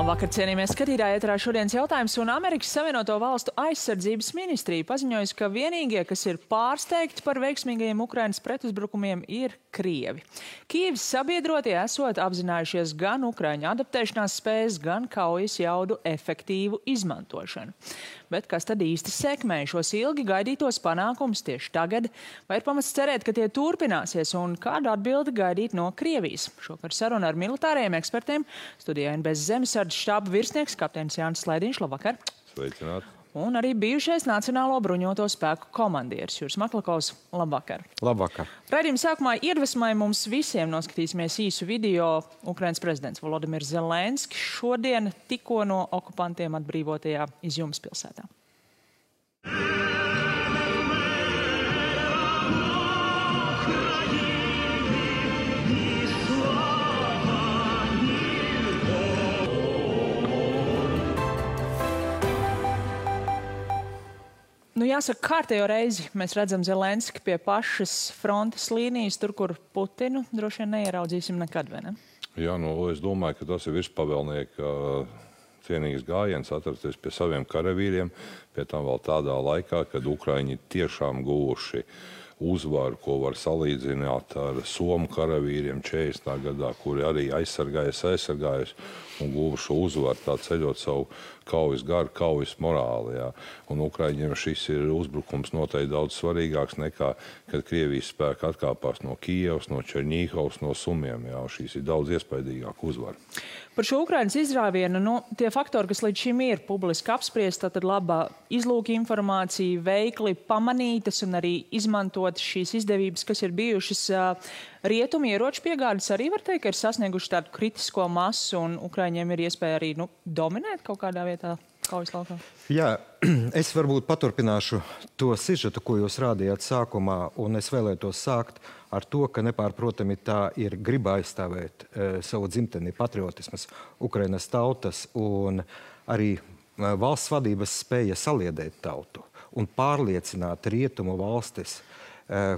Labvakar, cienījamies skatītāji, ēterā šodienas jautājums, un Amerikas Savienoto Valstu aizsardzības ministrija paziņojusi, ka vienīgie, kas ir pārsteigti par veiksmīgajiem Ukrainas pretuzbrukumiem, ir Krievi. Kijevas sabiedrotie esot apzinājušies gan Ukraiņu adaptēšanās spējas, gan kaujas jaudu efektīvu izmantošanu. Bet kas tad īsti sekmē šos ilgi gaidītos panākumus tieši tagad? Vai ir pamats cerēt, ka tie turpināsies, un kādu atbildi gaidīt no Krievijas? Šokar saruna ar militāriem ekspertiem. Studijā NBS Zemesardzes štāba virsnieks kapteinis Jānis Slaidiņš. Labvakar! Sveicināti! Un arī bijušais Nacionālo bruņoto spēku komandieris Juris Maklakovs. Labvakar! Labvakar! Raidījuma sākumā iedvesmai mums visiem noskatīsimies īsu video. Ukrainas prezidents Volodimirs Zelenskis šodien tikko no okupantiem atbrīvotajā Izjumas pilsētā. Jāsaka, kārtējo reizi mēs redzam Zelenski pie pašas frontes līnijas, tur, kur Putinu droši vien neieraudzīsim nekad, vai ne? Jā, es domāju, ka tas ir virspavēlnieka cienīgs gājiens atrasties pie saviem karavīriem, pie tam vēl tādā laikā, kad Ukraiņi tiešām guvuši uzvaru, ko var salīdzināt ar Somu karavīriem 40. gadā, kuri arī aizsargājas un guvuši uzvaru, tā ceļot savu kaujas garu, kaujas morāli. Jā. Un Ukraiņiem šis ir uzbrukums noteikti daudz svarīgāks nekā, kad Krievijas spēki atkāpās no Kijevas, no Čerņīhovas, no Sumiem. Jā. Šīs ir daudz iespaidīgāk uzvara. Par šo Ukrainas izrāvienu, tie faktori, kas līdz šim ir publiski apspriesti, tad laba izlūka informācija, veikli pamanītas un arī izmantot šīs izdevības, kas ir bijušas rietumu ieroču piegādes, arī var teikt, ka ir sasnieguši tādu kritisko masu un Ukraiņiem ir iespēja arī dominēt kaut kādā vietā kaujas laukā. Jā, es varbūt paturpināšu to sižetu, ko jūs rādījāt sākumā, un es vēlētos sākt ar to, ka nepārprotami tā ir griba aizstāvēt savu dzimteni, patriotismas, Ukrainas tautas un arī valsts vadības spēja saliedēt tautu un pārliecināt rietumu valstis,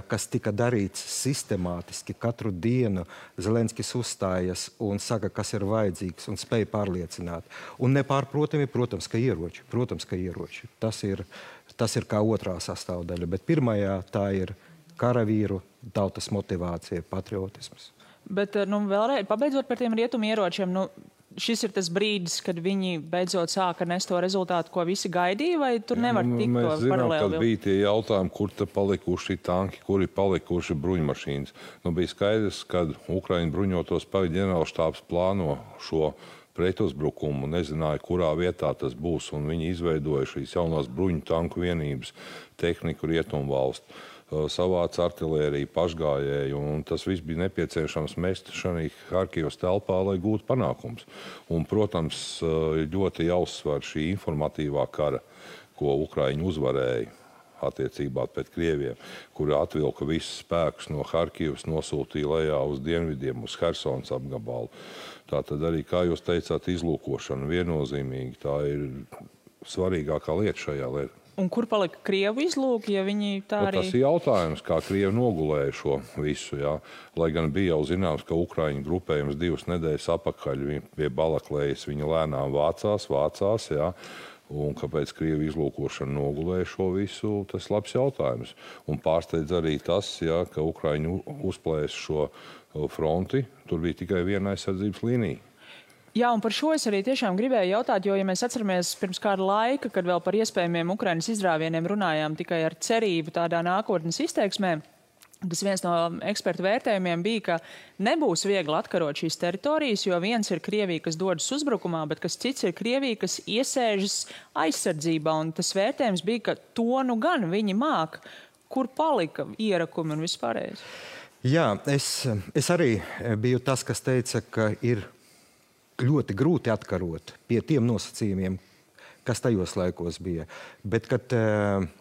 kas tika darīts sistemātiski katru dienu. Zelenskis uzstājas un saka, kas ir vajadzīgs un spēja pārliecināt. Un nepārprotami, protams, ka ieroči. Tas ir kā otrā sastāvdaļa, bet pirmajā tā ir karavīru tautas motivācija, patriotisms. Bet, vēlreiz, pabeidzot par tiem rietumu ieročiem, šis ir tas brīdis, kad viņi beidzot sāka nest to rezultātu, ko visi gaidīja, vai tur nevar tikt to paralēli? Mēs zinām, kad bija tie jautājumi, kur te palikuši tanki, kuri palikuši bruņmašīnas. Bija skaidrs, kad Ukraiņu bruņoto spēku ģenerālštābs plāno šo pretuzbrukumu, nezināja, kurā vietā tas būs, un viņi izveidoja šīs jaunās bruņu tanku vienības tehniku rietumu valstu. Savāca artilēriju, pašgājēju, un tas viss bija nepieciešams mest šajā Harkivas telpā, lai gūtu panākums. Un, protams, ļoti jāuzsver šī informatīvā kara, ko Ukraiņi uzvarēja attiecībā pret Krieviem, kuri atvilka visus spēkus no Harkivas, nosūtīja lejā uz dienvidiem, uz Hersonas apgabalu. Tātad arī, kā jūs teicāt, izlūkošana viennozīmīgi, tā ir svarīgākā lieta šajā lietā. Un kur palika Krievu izlūki, ja viņi tā arī... Tas ir jautājums, kā Krievi nogulēja šo visu, jā. Lai gan bija jau zināms, ka Ukraiņu grupējums 2 nedēļas apakaļ pie Balaklējas viņi lēnām vācās, jā. Un kāpēc Krievi izlūkošana nogulēja šo visu, tas labs jautājums. Un pārsteidz arī tas, jā, ka Ukraiņu uzplēs šo fronti, tur bija tikai viena aizsardzības līnija. Jā, un par šo es arī tiešām gribēju jautāt, jo, ja mēs atceramies pirms kāda laika, kad vēl par iespējamiem Ukrainas izrāvieniem runājām tikai ar cerību tādā nākotnes izteiksmē, tas viens no ekspertu vērtējumiem bija, ka nebūs viegli atkarot šīs teritorijas, jo viens ir Krievija, kas dodas uzbrukumā, bet kas cits ir Krievija, kas iesēžas aizsardzībā, un tas vērtējums bija, ka to gan viņi māk, kur palika ierakumi un vispārējais. Jā, es arī biju tas, kas teica, ka ir ļoti grūti atkarot pie tiem nosacījumiem, kas tajos laikos bija. Bet, kad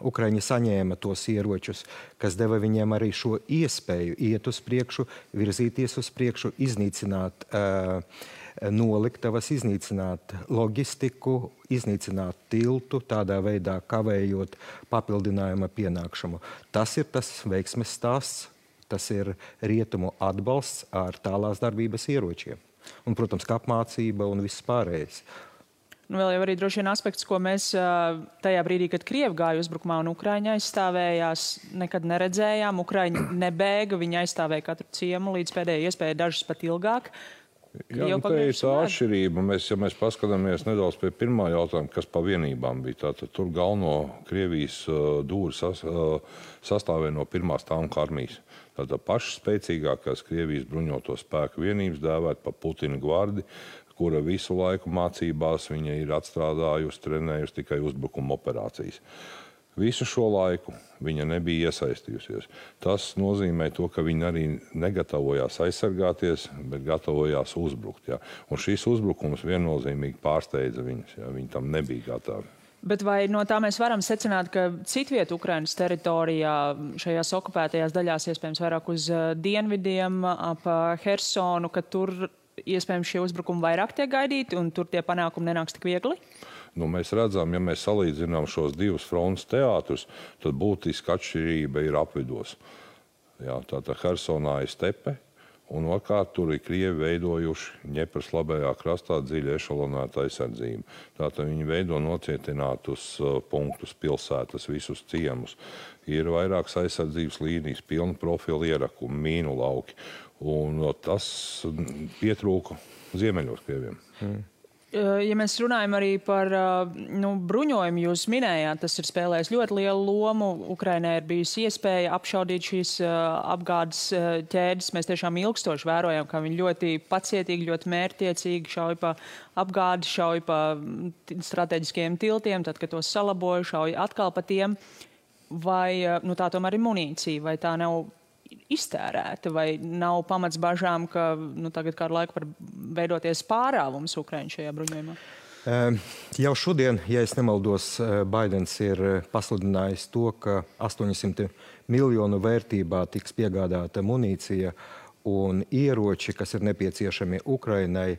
Ukraiņi saņēma tos ieročus, kas deva viņiem arī šo iespēju iet uz priekšu, virzīties uz priekšu, iznīcināt noliktavas, iznīcināt loģistiku, iznīcināt tiltu, tādā veidā kavējot papildinājuma pienākšanu. Tas ir tas veiksmes stāsts, tas ir rietumu atbalsts ar tālās darbības ieročiem. Un, protams, kā apmācība un viss pārējais. Nu, vēl jau arī droši vien aspekts, ko mēs tajā brīdī, kad Krievi gāja uzbrukumā un Ukraiņa aizstāvējās, nekad neredzējām. Ukraiņi nebēga, viņi aizstāvēja katru ciemu līdz pēdējai iespēja, dažas pat ilgāk. Jā, nu, te ir tā atšķirība. Ja mēs paskatāmies nedaudz pie pirmā jautājuma, kas pa vienībām bija, tātad tur galveno Krievijas dūri sastāvēja no pirmās tanku armijas. Tātad pašas spēcīgākās Krievijas bruņoto spēku vienības dēvēt pa Putina gvardi, kura visu laiku mācībās viņa ir atstrādājusi, trenējusi tikai uzbrukuma operācijas. Visu šo laiku viņa nebija iesaistījusies. Tas nozīmē to, ka viņa arī negatavojās aizsargāties, bet gatavojās uzbrukt. Ja? Un šis uzbrukums viennozīmīgi pārsteidza viņus. Ja? Viņi tam nebija gatavi. Bet vai no tā mēs varam secināt, ka citviet Ukrainas teritorijā, šajās okupētajās daļās, iespējams vairāk uz dienvidiem, ap Hersonu, ka tur iespējams šie uzbrukumi vairāk tiek gaidīti un tur tie panākumi nenāks tik viegli? Nu, mēs redzam, ja mēs salīdzinām šos divus frontes teātrus, tad būtiska atšķirība ir apvidos. Jā, tātad Hersonā ir stepe, un otrkārt tur ir Krievi veidojuši Ņepras labējā krastā dziļi ešalonēta aizsardzību. Tātad viņi veido nocietinātus punktus, pilsētas, visus ciemus. Ir vairākas aizsardzības līnijas, pilna profila ierakumi, mīnu lauki, un tas pietrūka ziemeļos Krieviem. Ja mēs runājam arī par bruņojumu, jūs minējāt, tas ir spēlējis ļoti lielu lomu. Ukrainai ir bijusi iespēja apšaudīt šīs apgādes ķēdes. Mēs tiešām ilgstoši vērojam, ka viņi ļoti pacietīgi, ļoti mērķtiecīgi šauj pa apgādi, šauj pa strateģiskajiem tiltiem, tad, kad tos salaboja, šauj atkal pa tiem. Vai tā tomēr ir munīcija, vai tā nav iztērēta, vai nav pamats bažām, ka tagad kādu laiku var veidoties pārāvums Ukraiņu šajā bruņojumā? Jau šodien, ja es nemaldos, Baidens ir pasludinājis to, ka 800 miljonu vērtībā tiks piegādāta munīcija un ieroči, kas ir nepieciešami Ukrainai.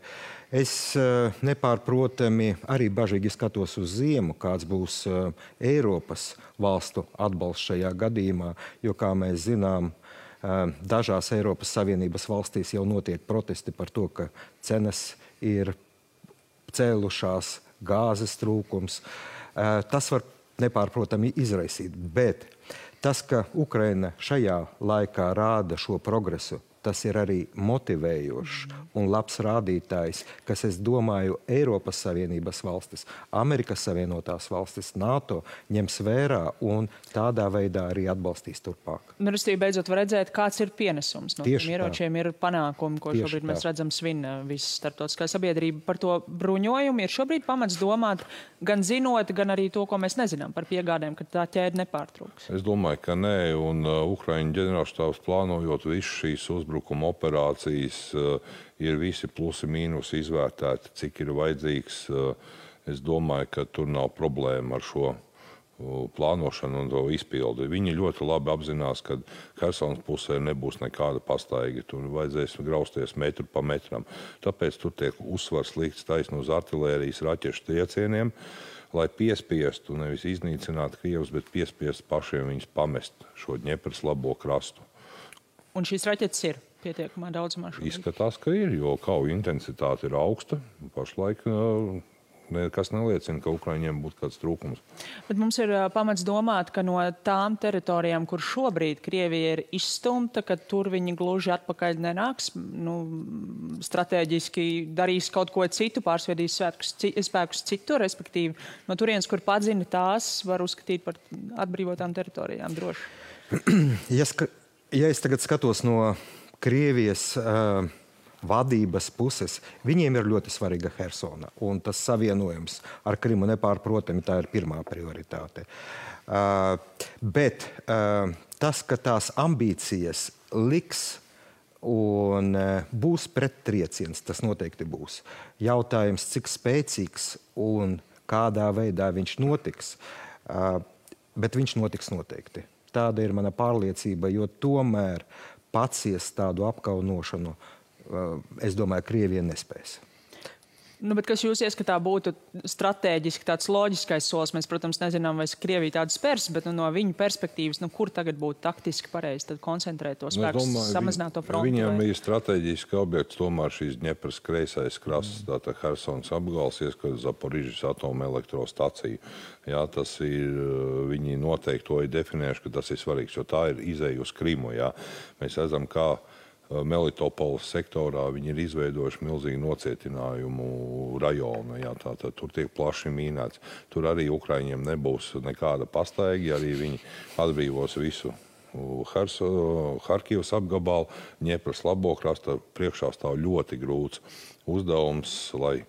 Es nepārprotami arī bažīgi skatos uz ziemu, kāds būs Eiropas valstu atbalsts šajā gadījumā, jo, kā mēs zinām, dažās Eiropas Savienības valstīs jau notiek protesti par to, ka cenas ir cēlušās, gāzes trūkums. Tas var nepārprotami izraisīt, bet tas, ka Ukraina šajā laikā rāda šo progresu, tas ir arī motivējošs un labs rādītājs, kas, es domāju, Eiropas Savienības valstis, Amerikas Savienotās valstis, NATO ņems vērā un tādā veidā arī atbalstīs turpāk. Restīvi, beidzot var redzēt, kāds ir pienesums no tiem ieročiem, ir panākumi, ko šobrīd mēs redzam svina visa starptautiskā sabiedrība. Par to bruņojumu ir šobrīd pamats domāt, gan zinot, gan arī to, ko mēs nezinām par piegādēm, ka tā ķēde nepārtrūks. Es domāju, ka nē, un Ukraiņu ģenerālštābs plānojot visu šīs uzbrukuma operācijas, ir visi plusi mīnusi izvērtēti, cik ir vajadzīgs. Es domāju, ka tur nav problēma ar šo plānošanu un to izpildi. Viņi ļoti labi apzinās, ka Hersonas pusē nebūs nekāda pastaiga. Tur vajadzēs grausties metru pa metram. Tāpēc tur tiek uzsvars likts taisni uz artilērijas raķešu triecieniem, lai piespiestu, nevis iznīcinātu Krievus, bet piespiestu pašiem viņus pamest šo Ņepras labo krastu. Un šīs raķetes ir pietiekamā daudzumā šobrīd? Izskatās, ka ir, jo kauju intensitāte ir augsta. Pašlaik nekas neliecina, ka Ukraiņiem būtu kāds trūkums. Bet mums ir pamats domāt, ka no tām teritorijām, kur šobrīd Krievija ir izstumta, ka tur viņi gluži atpakaļ nenāks, strateģiski darīs kaut ko citu, pārsviedīs spēkus citur, respektīvi no turienes, kur padzina, tās var uzskatīt par atbrīvotām teritorijām droši. Ja es tagad skatos no Krievijas vadības puses, viņiem ir ļoti svarīga Hersona, un tas savienojums ar Krimu nepārprotami tā ir pirmā prioritāte. Bet tas, ka tās ambīcijas liks un būs prettrieciens, tas noteikti būs. Jautājums, cik spēcīgs un kādā veidā viņš notiks, bet viņš notiks noteikti. Tāda ir mana pārliecība, jo tomēr paciest tādu apkaunošanu, es domāju, Krievija nespēs. Nu, bet kas jūs ieskatā būtu stratēģiski tāds loģiskais solis? Mēs, protams, nezinām, vai Krievija tādu spērs, bet no viņu perspektīvas, kur tagad būtu taktiski pareizi tad koncentrēt to spēku, samazināt to frontu? Viņam ir strateģiski objekts tomēr šīs Dņepras kreisais krasts, tātad Hersons apgals, ieskat Zaporižas atomelektrostacija. Jā, tas ir, viņi noteikti to ir definējuši, ka tas ir svarīgs, jo tā ir izēja uz Krimu, jā. Mēs redzam, kā Melitopoles sektorā viņi ir izveidojuši milzīgu nocietinājumu rajonu. Jā, tātad tur tiek plaši mīnēts. Tur arī Ukraiņiem nebūs nekāda pastaigi, arī viņi atbrīvos visu Harkivas apgabalu, Dņepras labo krasta. Priekšā stāv ļoti grūts uzdevums, lai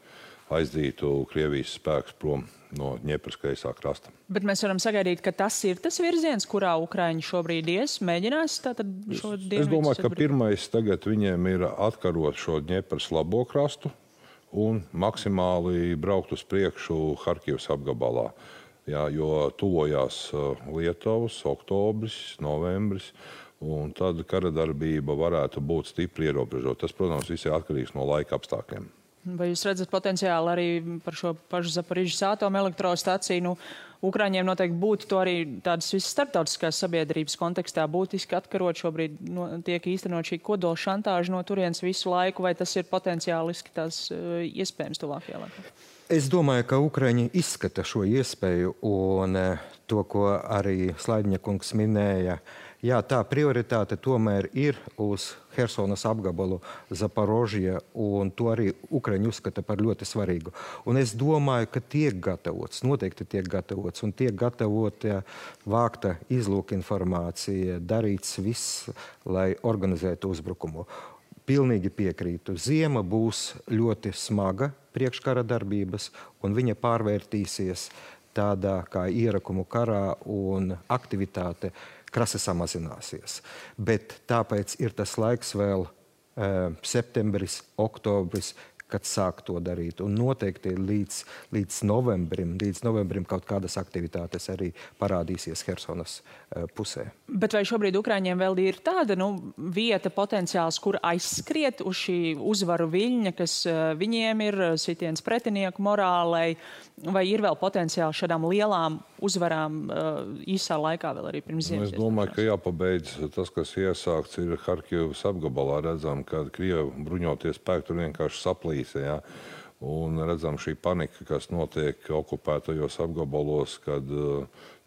aizdītu Krievijas spēkus prom no Dņepras kreisā krasta. Bet mēs varam sagaidīt, ka tas ir tas virziens, kurā Ukraiņi šobrīd mēģinās tātad šo dienvidu? Es domāju, ka pirmais tagad viņiem ir atkarot šo Dņepras labo krastu un maksimāli braukt uz priekšu Harkivas apgabalā. Jā, jo tuvojās Lietuvas, oktobris, novembris, un tad karadarbība varētu būt stipri ierobežota. Tas, protams, viss ir atkarīgs no laika apstākļiem. Vai jūs redzat potenciāli arī par šo pašu Zaporižas atomelektrostaciju? Nu, Ukraiņiem noteikti būtu to arī tādas visas starptautiskās sabiedrības kontekstā būtiski atkarot. Šobrīd tiek īstenot šī kodola šantāža no turienes visu laiku, vai tas ir potenciāliski tās iespējams tuvākajā laikā? Es domāju, ka Ukraiņi izskata šo iespēju un to, ko arī Slaidņakungs minēja. Jā, tā prioritāte tomēr ir uz Hersonas apgabalu Zaporožija, un to arī Ukraiņi uzskata par ļoti svarīgu. Un es domāju, ka tiek gatavots, noteikti tiek gatavots, un tiek gatavota vākta izlūka informācija, darīts viss, lai organizētu uzbrukumu. Pilnīgi piekrītu. Ziema būs ļoti smaga priekškara darbības, un viņa pārvērtīsies tādā kā ierakumu karā, un aktivitāte krasi samazināsies. Bet tāpēc ir tas laiks vēl septembris, oktobris, kad sāk to darīt. Un noteikti līdz novembrim kaut kādas aktivitātes arī parādīsies Hersonas pusē. Bet vai šobrīd Ukraiņiem vēl ir tāda vieta, potenciāls, kur aizskriet uz šī uzvaru viļņa, kas viņiem ir sitiens pretinieku morālei, vai ir vēl potenciāli šādām lielām uzvarām īsā laikā vēl arī pirms ziemas? Es domāju, ka jāpabeidz tas, kas iesākts ir Harkivas apgabalā. Redzam, ka Krievu bruņoties spēki tur vienkārši saplīsa. Ja? Un redzam šī panika, kas notiek okupētajos apgabalos, kad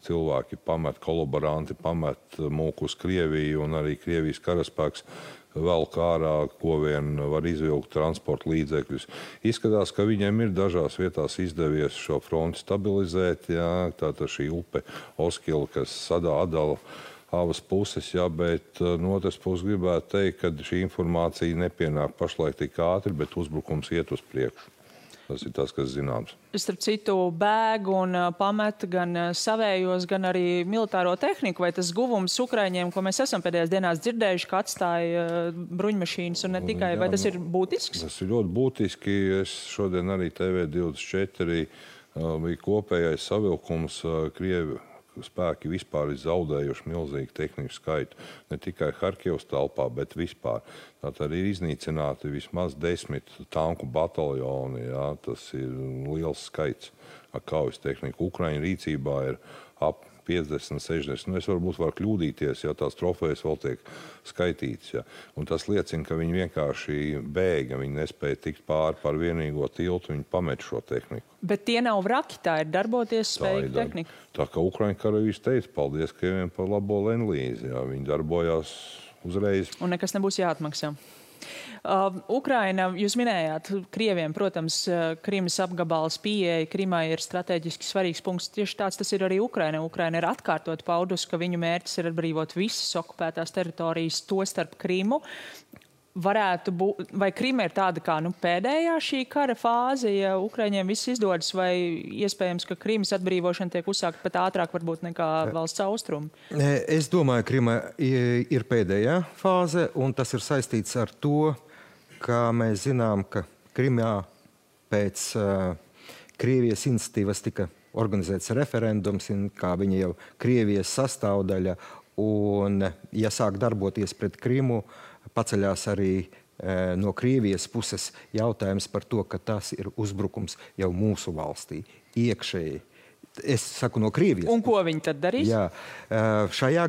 cilvēki pamet, kolaboranti pamet mūku uz Krieviju, un arī Krievijas karaspēks vēl kārā, ko vien var izvilkt transporta līdzekļus. Izskatās, ka viņiem ir dažās vietās izdevies šo fronti stabilizēt. Jā, tātad šī upe Oskila, kas sadala abas puses, jā, bet no otras puses gribētu teikt, ka šī informācija nepienāk pašlaik tik ātri, bet uzbrukums iet uz priekšu. Tas ir tas, kas zināms. Starp citu, bēg un pamet gan savējos, gan arī militāro tehniku, vai tas guvums Ukraiņiem, ko mēs esam pēdējās dienās dzirdējuši, ka atstāja bruņmašīnas un ne tikai, vai tas ir būtisks? Tas ir ļoti būtiski. Es šodien arī TV24 bija kopējais savilkums Krievi. Spēki vispār ir zaudējuši milzīgu tehniku skaitu. Ne tikai Harkivas telpā, bet vispār. Tātad ir iznīcināti vismaz 10 tanku bataljoni. Jā, tas ir liels skaits ar kaujas tehniku. Ukraiņu rīcībā ir ap 50, 60. Es varbūt varu kļūdīties, ja tās trofejas vēl tiek skaitītas. Ja. Un tas liecina, ka viņi vienkārši bēga, viņi nespēja tikt pāri par vienīgo tiltu, viņi pamet šo tehniku. Bet tie nav vraki, tā ir darboties spējīga tehnika. Tā kā Ukraiņu karavīrs teica, paldies Krieviem par labo lenlīzi. Jā, viņi darbojās uzreiz. Un nekas nebūs jāatmaksā. Ukraina, jūs minējāt, Krieviem, protams, Krimas apgabals pieeja Krimai ir strateģiski svarīgs punkts. Tieši tāds tas ir arī Ukraina. Ukraina ir atkārtot paudus, ka viņu mērķis ir atbrīvot visas okupētās teritorijas, to starp Krimu. Varētu būt, vai Krima ir tāda kā pēdējā šī kara fāze, ja Ukraiņiem viss izdodas, vai iespējams, ka Krimas atbrīvošana tiek uzsākta pat ātrāk varbūt nekā valsts austrumi? Es domāju, Krima ir pēdējā fāze, un tas ir saistīts ar to, ka mēs zinām, ka Krimā pēc Krievijas iniciatīvas tika organizēts referendums, kā viņa jau Krievijas sastāvdaļa, un ja sāk darboties pret Krimu, paceļās arī no Krievijas puses jautājums par to, ka tas ir uzbrukums jau mūsu valstī, iekšēji. Es saku no Krievijas. Un ko viņi tad darīs? Jā, šajā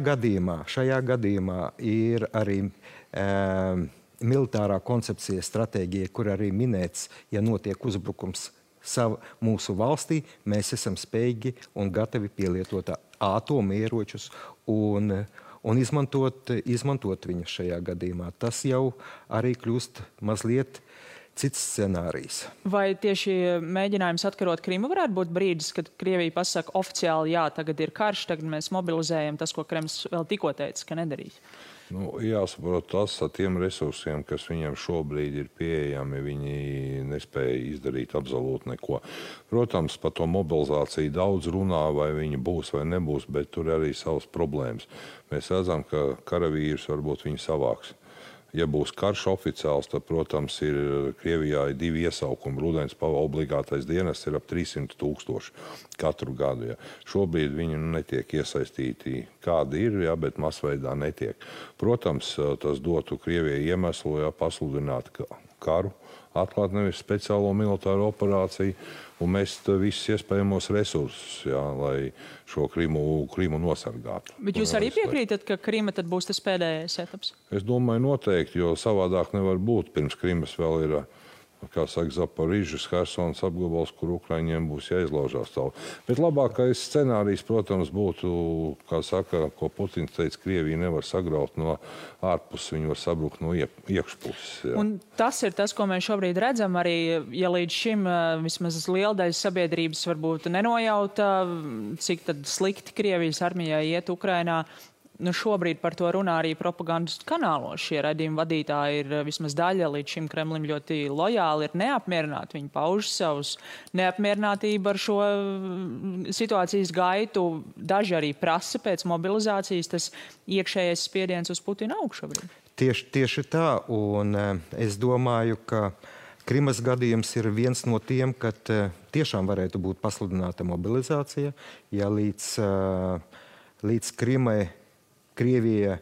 gadījumā ir arī militārā koncepcija, stratēģija, kur arī minēts, ja notiek uzbrukums mūsu valstī, mēs esam spējīgi un gatavi pielietot atomieročus un izmantot viņus šajā gadījumā. Tas jau arī kļūst mazliet cits scenārijs. Vai tieši mēģinājums atkarot Krimu varētu būt brīdis, kad Krievija pasaka oficiāli, jā, tagad ir karš, tagad mēs mobilizējam tas, ko Kremls vēl tikko teica, ka nedarīs? Jāsaprot tas ar tiem resursiem, kas viņam šobrīd ir pieejami, viņi nespēja izdarīt absolūti neko. Protams, par to mobilizāciju daudz runā, vai viņi būs vai nebūs, bet tur arī savas problēmas. Mēs redzam, ka karavīrs varbūt viņi savāks. Ja būs karš oficiāls, tad, protams, Krievijā ir 2 iesaukumi. Rudens obligātais dienests ir ap 300 000 katru gadu. Ja. Šobrīd viņi netiek iesaistīti, kādi ir, ja, bet masveidā netiek. Protams, tas dotu Krievijai iemeslu, ja, pasludināt karu, atklāt nevis speciālo militāro operāciju un mest visus iespējamos resursus, ja, lai šo Krimu nosargātu. Bet jūs arī piekrītat, ka Krima tad būs tas pēdējais etaps? Es domāju noteikti, jo savādāk nevar būt. Pirms Krimas vēl ir, kā saka, Zaporižas, Hersons apgabals, kur Ukraiņiem būs jāizlaužās tālu. Bet labākais scenārijs, protams, būtu, kā saka, ko Putins teica, Krievija nevar sagraut no ārpuses, viņi var sabrukt no iekšpuses. Jā. Un tas ir tas, ko mēs šobrīd redzam arī, ja līdz šim vismaz liela daļa sabiedrības varbūt nenojauta, cik tad slikti Krievijas armijai iet Ukrainā. Šobrīd par to runā arī propagandas kanālos. Šie raidījuma vadītāji ir vismaz daļa līdz šim Kremlim ļoti lojāli, ir neapmierināti. Viņi pauž savus neapmierinātību ar šo situācijas gaitu. Daži arī prasa pēc mobilizācijas, tas iekšējais spiediens uz Putinu aug šobrīd. Tieši tā, un es domāju, ka Krimas gadījums ir viens no tiem, kad tiešām varētu būt pasludināta mobilizācija, ja līdz Krimai Krievija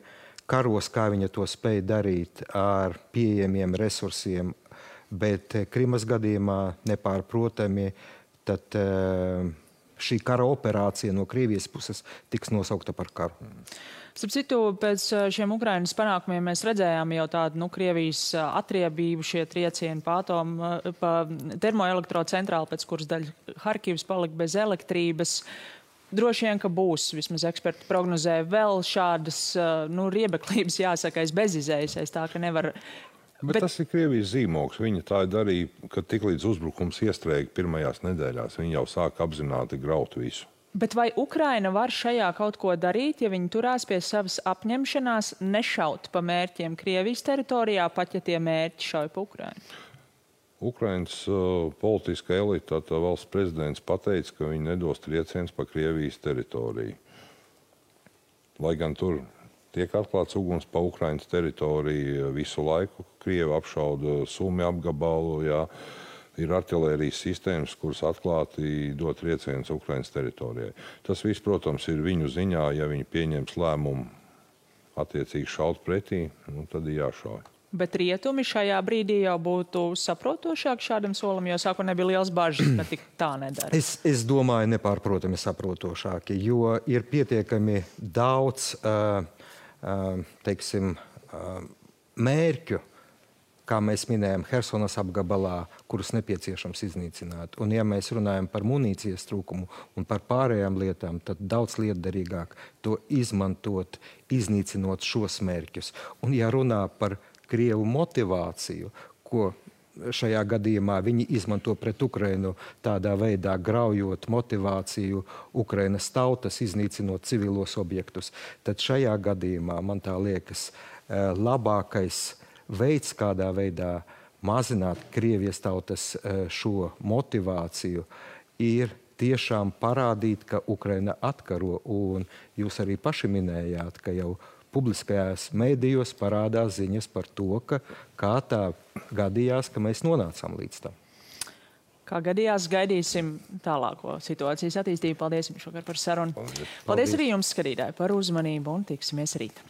karos, kā viņa to spēja darīt ar pieejamiem resursiem, bet Krimas gadījumā nepārprotami, tad šī kara operācija no Krievijas puses tiks nosaukta par karu. Starp citu, pēc šiem Ukrainas panākumiem mēs redzējām jau tādu Krievijas atriebību, šie triecieni pa termoelektrocentrāli, pēc kuras daļa Harkivas palika bez elektrības. Droši vien, ka būs, vismaz eksperti prognozē, vēl šādas riebeklības, jāsaka, bezizējas, tā ka nevar. Bet tas ir Krievijas zīmogs. Viņa tā darīja, ka tiklīdz uzbrukums iestrēga pirmajās nedēļās, viņa jau sāka apzināti graut visu. Bet vai Ukraina var šajā kaut ko darīt, ja viņi turās pie savas apņemšanās nešaut pa mērķiem Krievijas teritorijā, pat ja tie mērķi šauj pa Ukrainu? Ukrainas politiskā elita, tā valsts prezidents pateica, ka viņi nedos triecienus pa Krievijas teritoriju. Lai gan tur tiek atklāts uguns pa Ukrainas teritoriju visu laiku, Krievi apšauda Sumi apgabalu, jā, ir artilērijas sistēmas, kuras atklāti dot triecienus Ukrainas teritorijai. Tas viss, protams, ir viņu ziņā, ja viņi pieņems lēmumu attiecīgi šaut pretī, tad ir jāšauj. Bet rietumi šajā brīdī jau būtu saprotošāk šādam solim, jo sāku nebija liels bažas, ka tik tā nedara. Es domāju, nepārprotami saprotošāki, jo ir pietiekami daudz, teiksim, mērķu, kā mēs minējam, Hersonas apgabalā, kurus nepieciešams iznīcināt. Un ja mēs runājam par munīcijas trūkumu un par pārējām lietām, tad daudz lietderīgāk to izmantot, iznīcinot šos mērķus. Un ja runā par Krievu motivāciju, ko šajā gadījumā viņi izmanto pret Ukrainu tādā veidā, graujot motivāciju Ukrainas tautas, iznīcinot civilos objektus, tad šajā gadījumā, man tā liekas, labākais veids, kādā veidā mazināt Krievijas tautas šo motivāciju, ir tiešām parādīt, ka Ukraina atkaro, un jūs arī paši minējāt, ka jau publiskajās mēdījos parādās ziņas par to, ka kā tā gadījās, ka mēs nonācām līdz tam. Kā gadījās, gaidīsim tālāko situācijas attīstību. Paldies jums šokar par sarunu. Paldies arī jums, skatītāji, par uzmanību un tiksimies rīt.